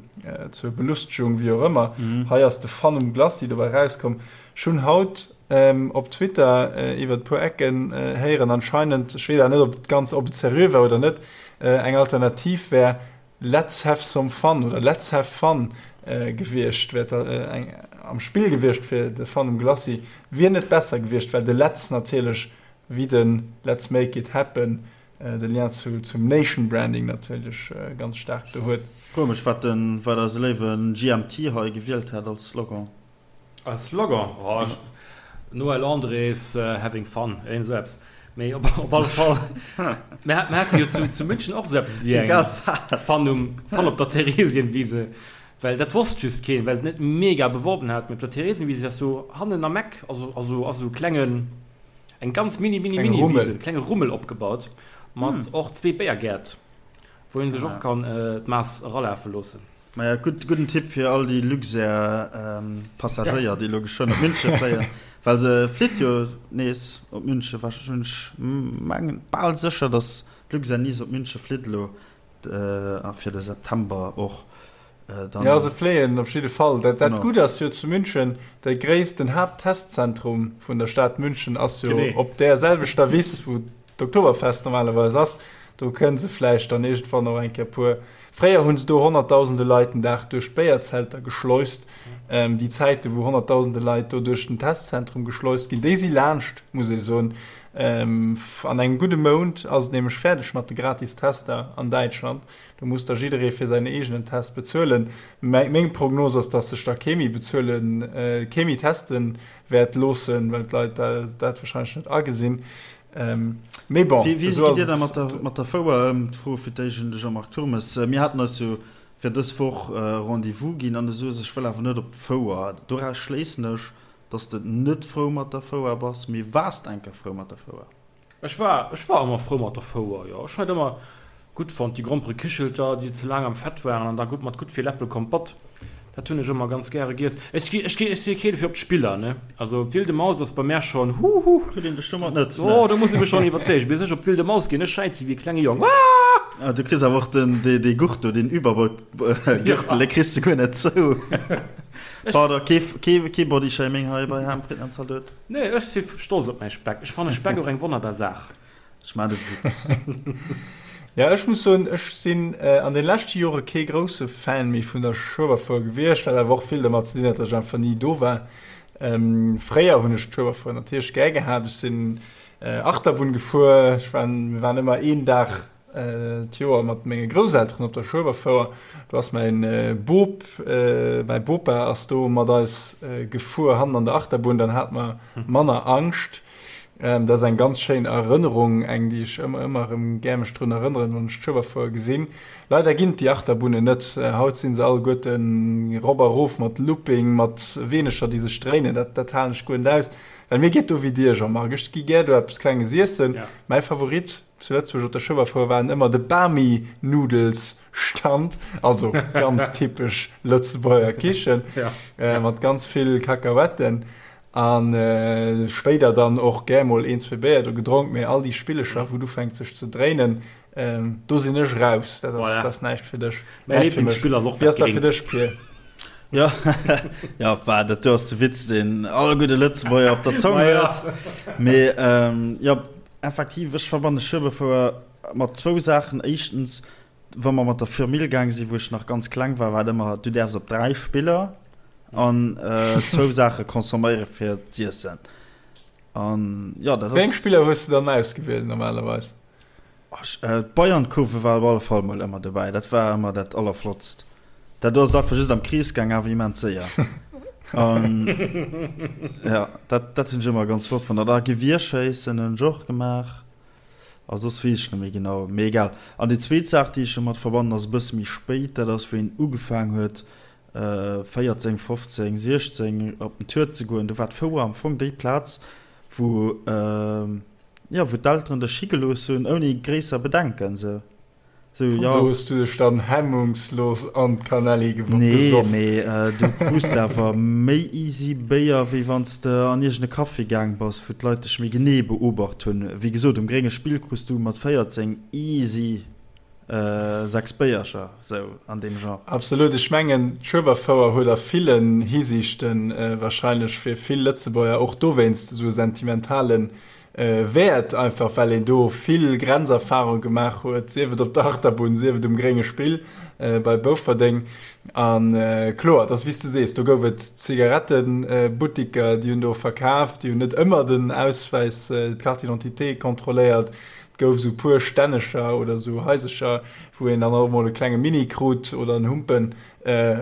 S1: zur Belustegung, wéi och ëmmer. Hei ass de Fun um Glacis dobäi erauskomm. Ech hunn haut op Twitter iwwer e puer Ecken héieren, anscheinend, ech weess awer net, ob et ganz, ob et seriö war oder net, eng Alternativ wär, Let's have some fun oder Let's have fun gewiescht, wär eng am Spill gewiescht fir de Fun um Glacis, wier net besser gewiescht, well de Let's natierlech wéi de Let's make it happen de Lien zu zum Nation Branding natierlech ganz staark do huet.
S2: Froe mech wat den wat eise léiwen GMT hei gewielt hätt als Slogan.
S3: Als Slogan? Oh, ech, Noël Andrés, Having fun, iergend esou eppes. Mee op, op alle Fall, mir, mir hate jo zu, zu München och esou eppes wéi eng Fun um, Fun op der Theresienwiese, well dat wosst just keen, well se net mega beworben hat. Mee op der Theresienwiese ass sou hannen am Eck, also, also ass esou e klengen, eng ganz mini, mini, mini Wise, e klenge Rummel opgebaut mat och zwee Béiergäert, wou ee sech och kann d'Maass eralafe loossen.
S2: Maja, gutt, gudden Tipp fir all déi Luxair-Passagéier, déi elo geschwënn op Münche fléien, well se flitt jo nees op Münche. Ech mengen, bal sécher, datt Luxair nees op Münche flitt elo a fir de September och
S1: dann. Jo, se fléien op jidde Fall. Dat, dat Gutt ass jo zu München, de gréissten Haapttestzentrum vun der Stad München ass jo op där selwechter Wiss, wou d'Oktoberfest normalerweis ass. Do kënne se vläicht dann iergendwann och eng Kéier puer. Fréier hu se do honnertdausende Leit den Dag duerch d'Béierzelter geschleust. Déi Zäite wou honnertdausende Leit do duerch den Testzentrum geschleust ginn, déi si laanscht, muss ee soen. An engem gudde Mount ass et nämlech fäerdeg mat de gratis Tester an Däitschland. Do muss da jidderee fir säin eegenen Test bezuelen. Meng Prognos ass, datt sech da kee méi bezuelen, kee méi teste wäert loossen, well d'Leit dat warscheinlech net agesinn. Ähm, mee bon,
S2: Wéi, wéi gitt Dir da mat der, mat der Fouer ëm? D'Fro fir d'éischt un de Jean-Marc Turmes. Mir haten eis jo fir dës Woch Rendez-vous ginn an du soos, ech wëll awer net op d'Fouer. Doraus schléissen ech, dass de net frou mat der Fouer bass. Mee waars de eng Kéier frou mat der Fouer?
S3: Ech war, ech war ëmmer frou mat der Fouer, jo. Ech hunn dat ëmmer Gutt fonnt, déi Gromperekichelter, déi ze laang am Fett waren an da gutt mat gutt vill Äppelkompott. Dat hunn ech ëmmer ganz gäre giess. Ech gi, ech gi, ech si keen fir op d'Spiller, ne. Also d'Wilde Maus ass bei mär schonn, huhu.
S2: Kritt een dech domat net,
S3: ne? Oh, do muss ee mech schonn iwwerzeegen. Bis ech op d'Wilde Maus ginn, ech schäize wéi e klenge Jong. Aah!
S2: Ah, du kriss awer och den, dee, dee Gurt do, deen Überbrückgürtel, dee kriss de guer net zou. Pardon, kee, kee, kee Bodyshaming hei bei Ham, Fritten an Zaldot.
S3: Nee, ech si stolz op mäi Speck. Ech fanne Speck och eng wonnerbar Saach.
S2: Ech maan de Witz.
S1: Ja, ech muss soen, ech sinn an den leschte Jore kee grousse Fan méi vun der Schueberfouer gewiescht, wat awer och vill dermat ze dinn hat, dass ech einfach ni do war. Fréier hunn ech d'Schueberfouer natierlech gär gehat. Ech sinn Achterbunn gefuer, ech war, mir waren ëmmer een Dag d'Joer mat menge Grousselteren op der Schueberfouer. Do ass mäin Bop, mäi Bopa ass do mat eis gefuer hannen an der Achterbunn, dann hate mer manner Angscht. Dat ass eng ganz schéin Erënnerung, eng déi ech ëmmer ëmmer erëm gär mech drun erënneren, wann ech d'Schueberfouer gesinn. Leider ginn et déi Achterbunnen net. Haut si se alleguerten erop a rof mat Looping, mat Weenecher déi sech dréinen. Dat dat halen ech guer net aus. Well mir geet do wéi dir, Jean-Marc, ech gi gär do eppes Klenges iessen. Mäi Favorit. Zu Lëtzebuerg op der Schueberfouer waren ëmmer de Bami Noodles Stand, also ganz typesch Lëtzebuerger Kichen mat ganz vill Kakahuetten an spéider dann och gär mol een, zwee Béier do gedronk, mee all déi Spillecher wou et ufänkt sech ze dréinen, do sinn ech raus, dat ass, dat ass näischt fir dech.
S3: Mäi Lieblingsspill ass och
S1: dat Gréngt. Wéi ass dat fir dech, Pir?
S2: Jo, jo, bah, dat do ass de Witz, deen all gudde Lëtzebuerger op der Zong huet. Mee jo, Effektiv, ech verbanne Schueberfouer mat zwou Saachen. Éischtens, wa mer mat der Firmill gaang sinn, wou ech nach ganz kleng war, war et ëmmer, du däerfs op 3 Spiller an zwou Saache consomméiere fir z'iessen. An jo, dat ass.
S1: Wéi eng Spiller hues de dann ausgewielt normalerweis?
S2: D'Bayernkurve war op alle Fall mol ëmmer dobäi. Dat war ëmmer dat Allerflottst. Dat do ass et einfach just am Krees gaang, awer immens séier. An ja, dat, dat hunn ech ëmmer ganz flott fonnt. An da Gewierschéissen hunn ech och gemaach. A soss weess ech net méi genau. Mee egal. An déi zweet Saach, déi ech domat verbannen, ass e bësse méi spéit. Dat ass, wéi een ugefaang huet, 14, 15, 16 op den Tour ze goen. Do war d'Fouer am Fong déi Plaz, wou, jo, wou d'Elteren dech higelooss hunn, ouni gréisser Bedenken, sou.
S1: Sou, jo. Do hues du dech dann hemmungslos an d'Kanelli gesoff.
S2: Nee, mee du krus de awer méi easy Béier, wéi wann s de an iergend e Café gaang bass, wou d'Leit dech méi genee beobacht hunn. Wéi gesot, um Grénge Spill krus du mat 14 easy 6 Béiercher, sou an deem Genre.
S1: Absolut. Ech mengen, d'Schueberfouer huet a villen Hisiichten wahrscheinlech fir vill Lëtzebuerger och dowéinst esou e sentimentale Wäert, einfach well een do vill Grenzerfarung gemaach huet, sief et op der Achterbunn, sief et um grénge Spill bei Bouferdeng. A kloer, et ass wéi s de sees, do gouf et Zigarettebuttiker, déi hunn do verkaf, déi hunn net ëmmer den Auswäis, d'Carte d'identité kontrolléiert. Et gouf esou puer Stännecher oder esou Haisercher, wou een dann och emol e klenge Mini krut oder en Humpen,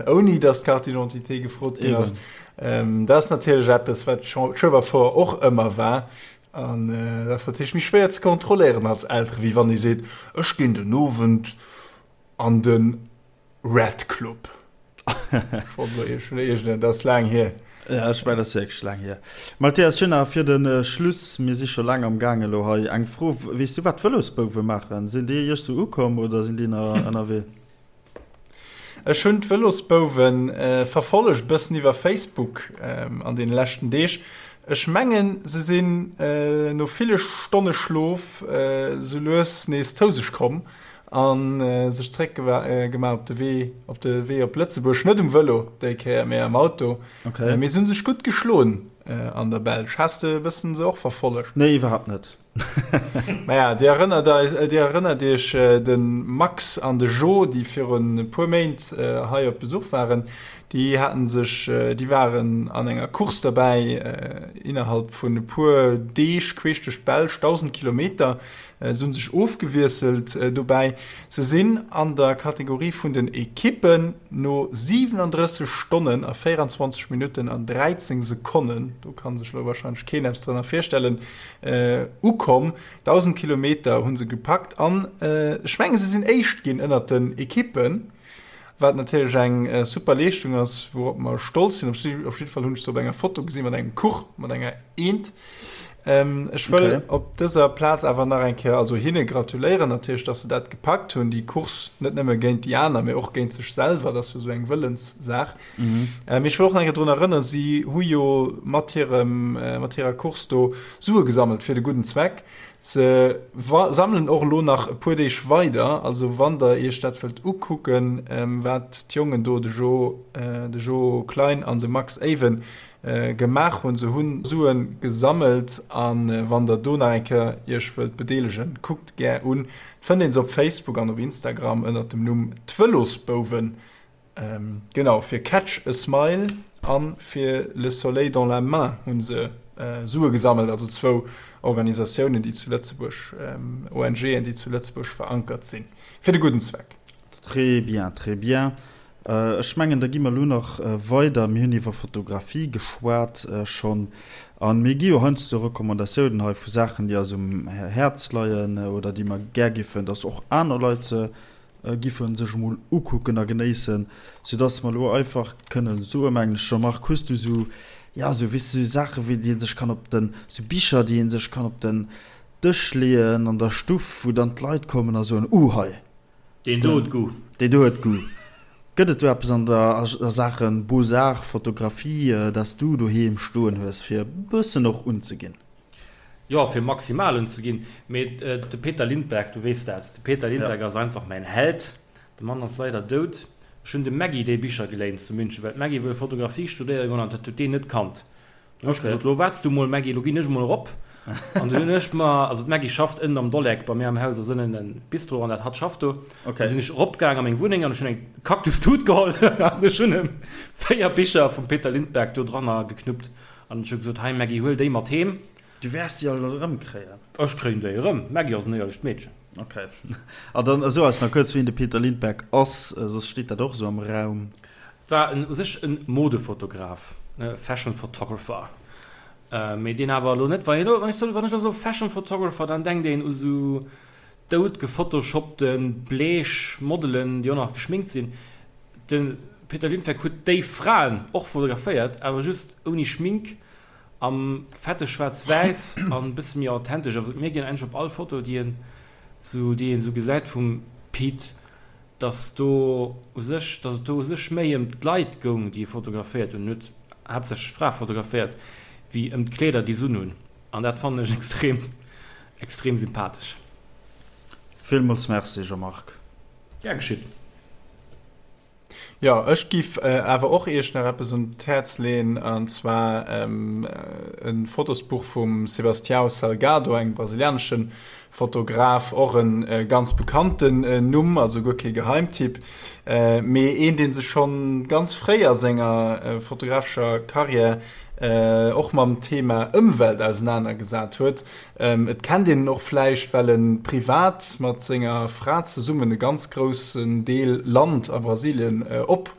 S1: ouni datt d'Carte d'identité gefrot ginn ass. Dat ass natierlech eppes, wat d'Schueberfouer och ëmmer war. An dat ass natierlech méi schwéier ze kontrolléieren als Eltere wéi wann ee seet, ech ginn den Owend an de Red Club. Ech wollt elo iergend, dat ass laang hier.
S2: Ja, ech mengen, dat ass wierklech laang hier. Mathias, ech hunn nach fir de Schluss, mir si scho laang am Gaang elo hei, eng Fro. Weess du, wat d'Vëlosbouwe maachen? Sinn déi iech sou ukomm oder sinn déi nach ënnerwee?
S1: Ech hunn d'Vëlosbouwe verfollegt, e bëssen iwwer Facebook an deene leschten Deeg. Ech mengen, se sinn no ville Stonne Schlof sou lues nees zou sech komm a sech zeréck gemaach op de Wee op de Wee op Lëtzebuerg. Net um Vëlo déi Kéier, mee am Auto. Mee se hu sech gutt geschloen an der Belsch. Has de e bëssen se och verfollegt?
S2: Nee, iwwerhaapt net.
S1: Maja, Dir erënnert eis, Dir erënnert Iech de Max an de Jo, déi virun e puer Méint hei op Besuch waren, déi haten sech, déi waren an enger Course derbäi, innerhalb vun e puer Deeg queesch duerch d'Belsch, 1.000 Kilometer. Se hunn sech ofgewiesselt dobäi. Se sinn an der Kategorie vun den Ekippen no 37 Stonnen a 24 Minutten an 13 Sekonnen, do ka sech elo warscheinlech keen eppes drënner virstellen, ukomm. 1.000 Kilometer hu se gepackt an ech menge se sinn Éischt ginn ënnert den Ekippen, wat natierlech eng super Leeschtung ass, wourop mer stolz sinn. Op jidde Fall hunn ech se op enger Foto gesinn mat engem Kuch, mat enger Eent. Ech wëll okay. op dëser Plaz awer nach eng Kéier also hinne gratuléieren natierlech, dass se dat gepackt hunn, déi Course net nëmme géint déi aner, mee och géint sech selwer. Dat ass jo esou eng Wëllenssaach. Mhm. Äh, mee ech wëll och nach eng Kéier drun erënneren, si hu jo mat hirem, äh, mat hirer Course do Sue gesammelt fir de gudden Zweck. Se sammelen och elo nach e puer Deeg weider, also wann der iech dat wëllt ukucken, ähm, wat d'Jongen do, de Jo, äh, de Jo Klein an de Max Even, äh, gemaach hunn. Se hunn Sue gesammelt an äh, wann der do nach eng Kéier iech wëllt bedeelegen, kuckt gär un. Et fënnt een se op Facebook an op Instagram ënnert dem Numm D'Vëlosbouwen. Genau, fir Catch a Smile a fir Le Soleil dans la main hu se Sue gesammelt, also zwou Organisatiounen, déi zu Lëtzebuerg, ONGen, déi zu Lëtzebuerg verankert sinn, fir de gudden Zweck.
S2: Très bien, très bien. Ech mengen, da gi mer elo nach weider. Mir hunn iwwer Fotografie geschwat schonn. A mir gi jo heiansdo Recommandatiounen hei vu Saachen, déi eis um Häerz leien oder déi mer gär giffen, dass och aner Leit se Giff en sech emol ukucken a genéissen, sou dass mer elo einfach kënnen soen, mengen ech. Jean-Marc, hues du sou, ja, sou, weess de, sou Saachen, wéi déi een sech kann op den, sou Bicher, déi een sech kann op den. Dësch leeën an der Stuff, wou dann d'Leit kommen a soen, Uh hei,
S3: Deen do huet Goût.
S2: Deen do huet Goût. Gëtt et do eppes an der a Saache Beaux-Arts, Fotografie, dat s du doheem stoen hues, fir e bëssen och unzeginn?
S3: Jo, fir maximal unzeginn. Mee de Peter Lindbergh, du weess dat, de Peter Lindbergh ass einfach mäin Held. De Mann ass leider dout. Ech hunn dem Maggy déi Bicher geléint zu München, well d'Maggy wëll Fotografie studéiere goen an dat huet deen net kannt. Dann hu ech gesot, Lo waarts du mol, Maggy, lo ginn ech mol erop. An dunn hunn ech mer, also d'Maggy schafft ënnen am Dolleck, bei mir am Haus ass ënnen e Bistro an dat hatt schafft do. Dann sinn ech eropgaang a meng Wunneng an ech hunn eng Kaktustut geholl an ech hunn em 4 Bicher vum Peter Lindbergh do dranner geknuppt an ech hu gesot, Hei Maggy, huel déi mat heem.
S2: Du wäers déi all erëmkréien.
S3: Ech kréien déi erëm. D'Maggy ass en éierlecht Meedchen.
S2: Ok. A dann so eis nach kuerz, wien de Peter Lindbergh ass, soss steet dat och esou am Raum.
S3: War u sech e Modefotograf, Fashion Photographer, mee deen awer elo net, wann ech elo soe Fashion Photographer, dann denkt een u sou dout gefotoshoppte bleech Modelen, déi och nach geschminkt sinn. De Peter Lindbergh huet déi Fraen och fotograféiert, awer just ouni Schmink, am fette Schwaarz-Wäiss an e bësse méi authentesch. Also et mierkt een eigentlech op all Foto, déi een esou gesäit vum Pete, dass do u sech, dass et do u sech méi ëm d'Leit goung, déi e fotograféiert hunn, en huet haaptsächlech Frae fotograféiert, wéi ëm d'Kleeder, déi s'un hunn. An dat fannen ech extrem, extrem sympathesch.
S2: Villmools Merci Jean-Marc.
S3: Gär geschitt.
S1: Jo, ech giff awer och iech nach eppes un d'Häerz leen, an zwar e Fotosbuch vum Sebastião Salgado, engem brasilianesche Fotograf, och e ganz bekannten Numm, also guer kee Geheimtipp, mee een, dee sech schonn ganz fréi a senger fotografescher Karriär och mam Thema Ëmwelt ausenanergesat huet. Et kennt een en och vläicht, well e privat mat senger Fra zesummen e ganz groussen Deel Land a Brasilien op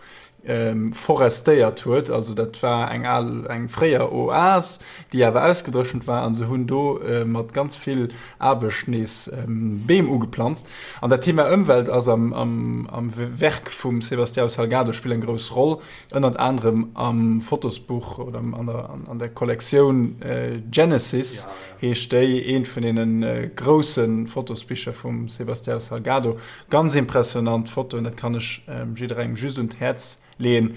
S1: forestéiert huet. Also dat war eng al, eng fréier Oas, déi awer ausgedréchent war, an se hunn do mat ganz vill Aarbecht nees Beem ugeplanzt. An dat Thema Ëmwelt ass am, am, am Werk vum Sebastião Salgado spillt eng grouss Roll, ënnert anerem am Fotosbuch oder an der, an der Kollektioun Genesis heescht déi, eent vun deene grousse Fotosbicher vum Sebastião Salgado. Ganz impressionant Fotoen, dat kann ech jidderengem just un d'Häerz leeën.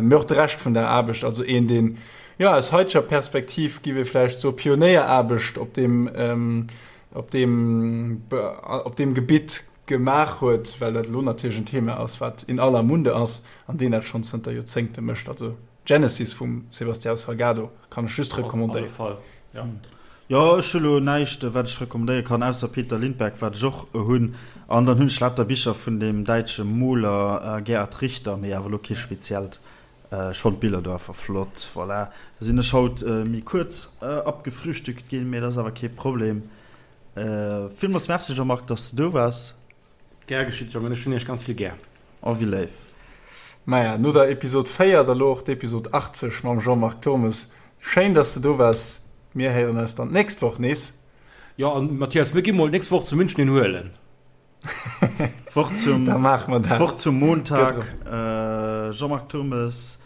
S1: Mee och de Rescht vun der Aarbecht, also een deen, jo aus haiteger Perspektiv giff ee vläicht soe Pionéieraarbecht op deem, op deem, op deem Gebitt gemaach huet, well dat elo natierlech en Thema ass, wat in aller Munde ass an deen dat schonn zënter Joerzéngte mécht. Also Genesis vum Sebastião Salgado kann ech just
S3: recommandéieren. Op alle Fall,
S2: jo. Jo, ech hu lo näischt wat ech recommandéiere kann, ausser Peter Lindbergh, wat ech och hunn. An dann hunn ech lauter Bicher vun deem däitsche Moler Gerhard Richter, mee awer lo kee speziellt. Ech fonnt d'Biller do einfach flott. Voilà, da sinn ech haut méi kuerz abgefrühstückt ginn, mee dat ass awer kee Problem. Villmools Merci Jean-Marc, dass de do waars.
S3: Gär geschitt Jongen, ech hunn iech ganz vill gär.
S2: Oh wéi léif.
S1: Maja, no der Episod 4 da lo och d'Episod 80 mam Jean-Marc Turmes. Schéin dass de do waars. Mir héieren eis dann d'nächst Woch nees.
S3: Jo, an Mathias, mir gi mol d'nächst Woch zu München een huelen.
S2: D'Woch zum,
S1: Da maache mer dat.
S2: d'Woch zum Montag. Jean-Marc Turmes,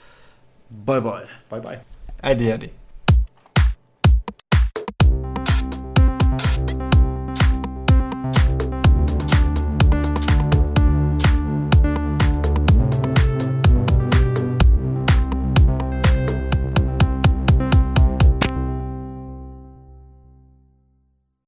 S2: bye bye.
S3: Bye bye.
S1: Äddi äddi.